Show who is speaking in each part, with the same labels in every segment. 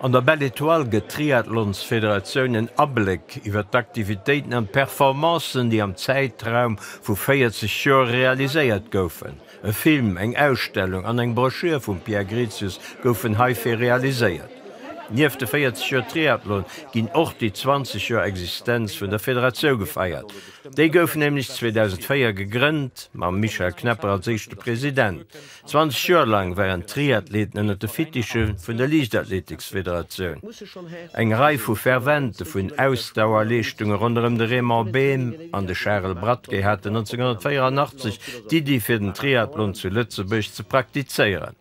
Speaker 1: An der Belle Etoile gëtt d'Triathlonsfederatioun en Abléck iwwer d'Aktivitéiten an d'Performancen, déi am Zäitraum vu 40 Joer realiséiert goufen. E Film, eng Ausstellung an eng Broschür vum Pierre Grezius goufen heifir realiséiert. Nieft de 40 Joer Triathlon ginn och déi 20 Joer Existenz vun der Federatioun gefeiert. Déi gouf nämlech 2004 gegrënnt, mam Michel Knepper als éischte President. 20 Joer laang waren d'Triathleten ënner de Fittiche vun der Liichtathletiksfederatioun. Eng Rei vu Fervente vun Ausdauerleeschtunge ronderëm de Raymond Behm an de Charel Bradtke haten 1984 d'Iddi fir den Triathlon zu Lëtzebuerg ze praktizéieren.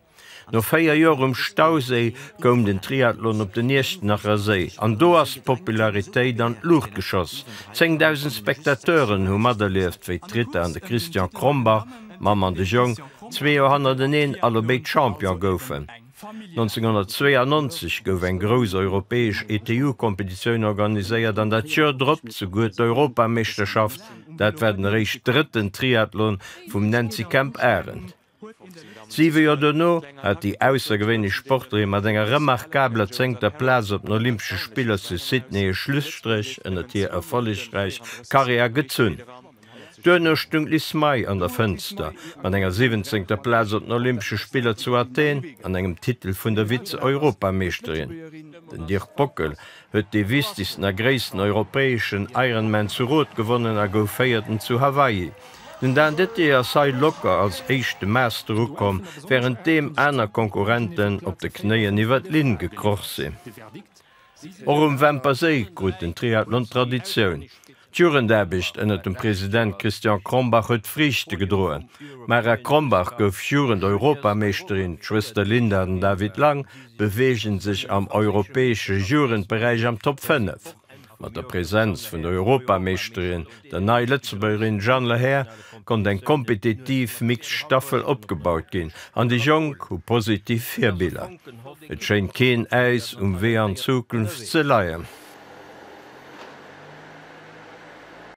Speaker 1: No 4 Joer um Stauséi koum den Triathlon op den Iechternacher Séi an do ass d'Popularitéit an d'Luucht geschoss. 10.000 Spectateuren hu materlieft wéi d'Rita an de Christian Krombach, D'Mamm an de Jong, zwee Joer hannerteneen allebéid Champion goufen. 1992 gouf eng grouss europäesch ETU-Kompetitioun organiséiert an dat Joer drop souguer d'Europameeschterschaft. Dat war den eréischt drëtten Triathlon vum Nancy Kemp-Arendt. Siwe Joer dono hat déi aussergewéinlech Sportlerin mat enger remarkabeler zéngter Plaz op den Olympesche Spiller zu Sydney e Schlusstréch ënnert hir erfollegräich Karriär gezunn. Duerno stung d'Liz May an der Fënster mat enger siwwenzéngter Plaz op den Olympesche Spiller zu Athen an engem Titel vun der Vize-Europameeschterin. Den Dirk Bockel huet dee wichtegsten a gréissten europäeschen Ironman zu Roth gewonnen a gouf Véierten zu Hawaii. Den Dan Dettier ass hei locker als éischte Master ukomm, wärenddeem aner Konkurrenten op de Knéien iwwer d'Linn gekroch sinn. Och um Wämper Séi krut den Triathlon Traditioun. D'Jugendaarbecht ënnert dem President Christian Krombach huet Friichte gedroen. D'Mara Krombach gouf Jugend-Europameeschterin, d'Schwëster Linda an den David Lang beweege sech am europäesche Jugendberäich am Top 5. Mat der Presenz vun der Europameeschterin, der Nei-Lëtzebuergerin Jeanne Lehair, konnt eng kompetitiv mixed Staffel opgebaut ginn an déi Jonk hu positiv Virbiller. Et schéint keen Äis um Wee an d'Zukunft ze leien.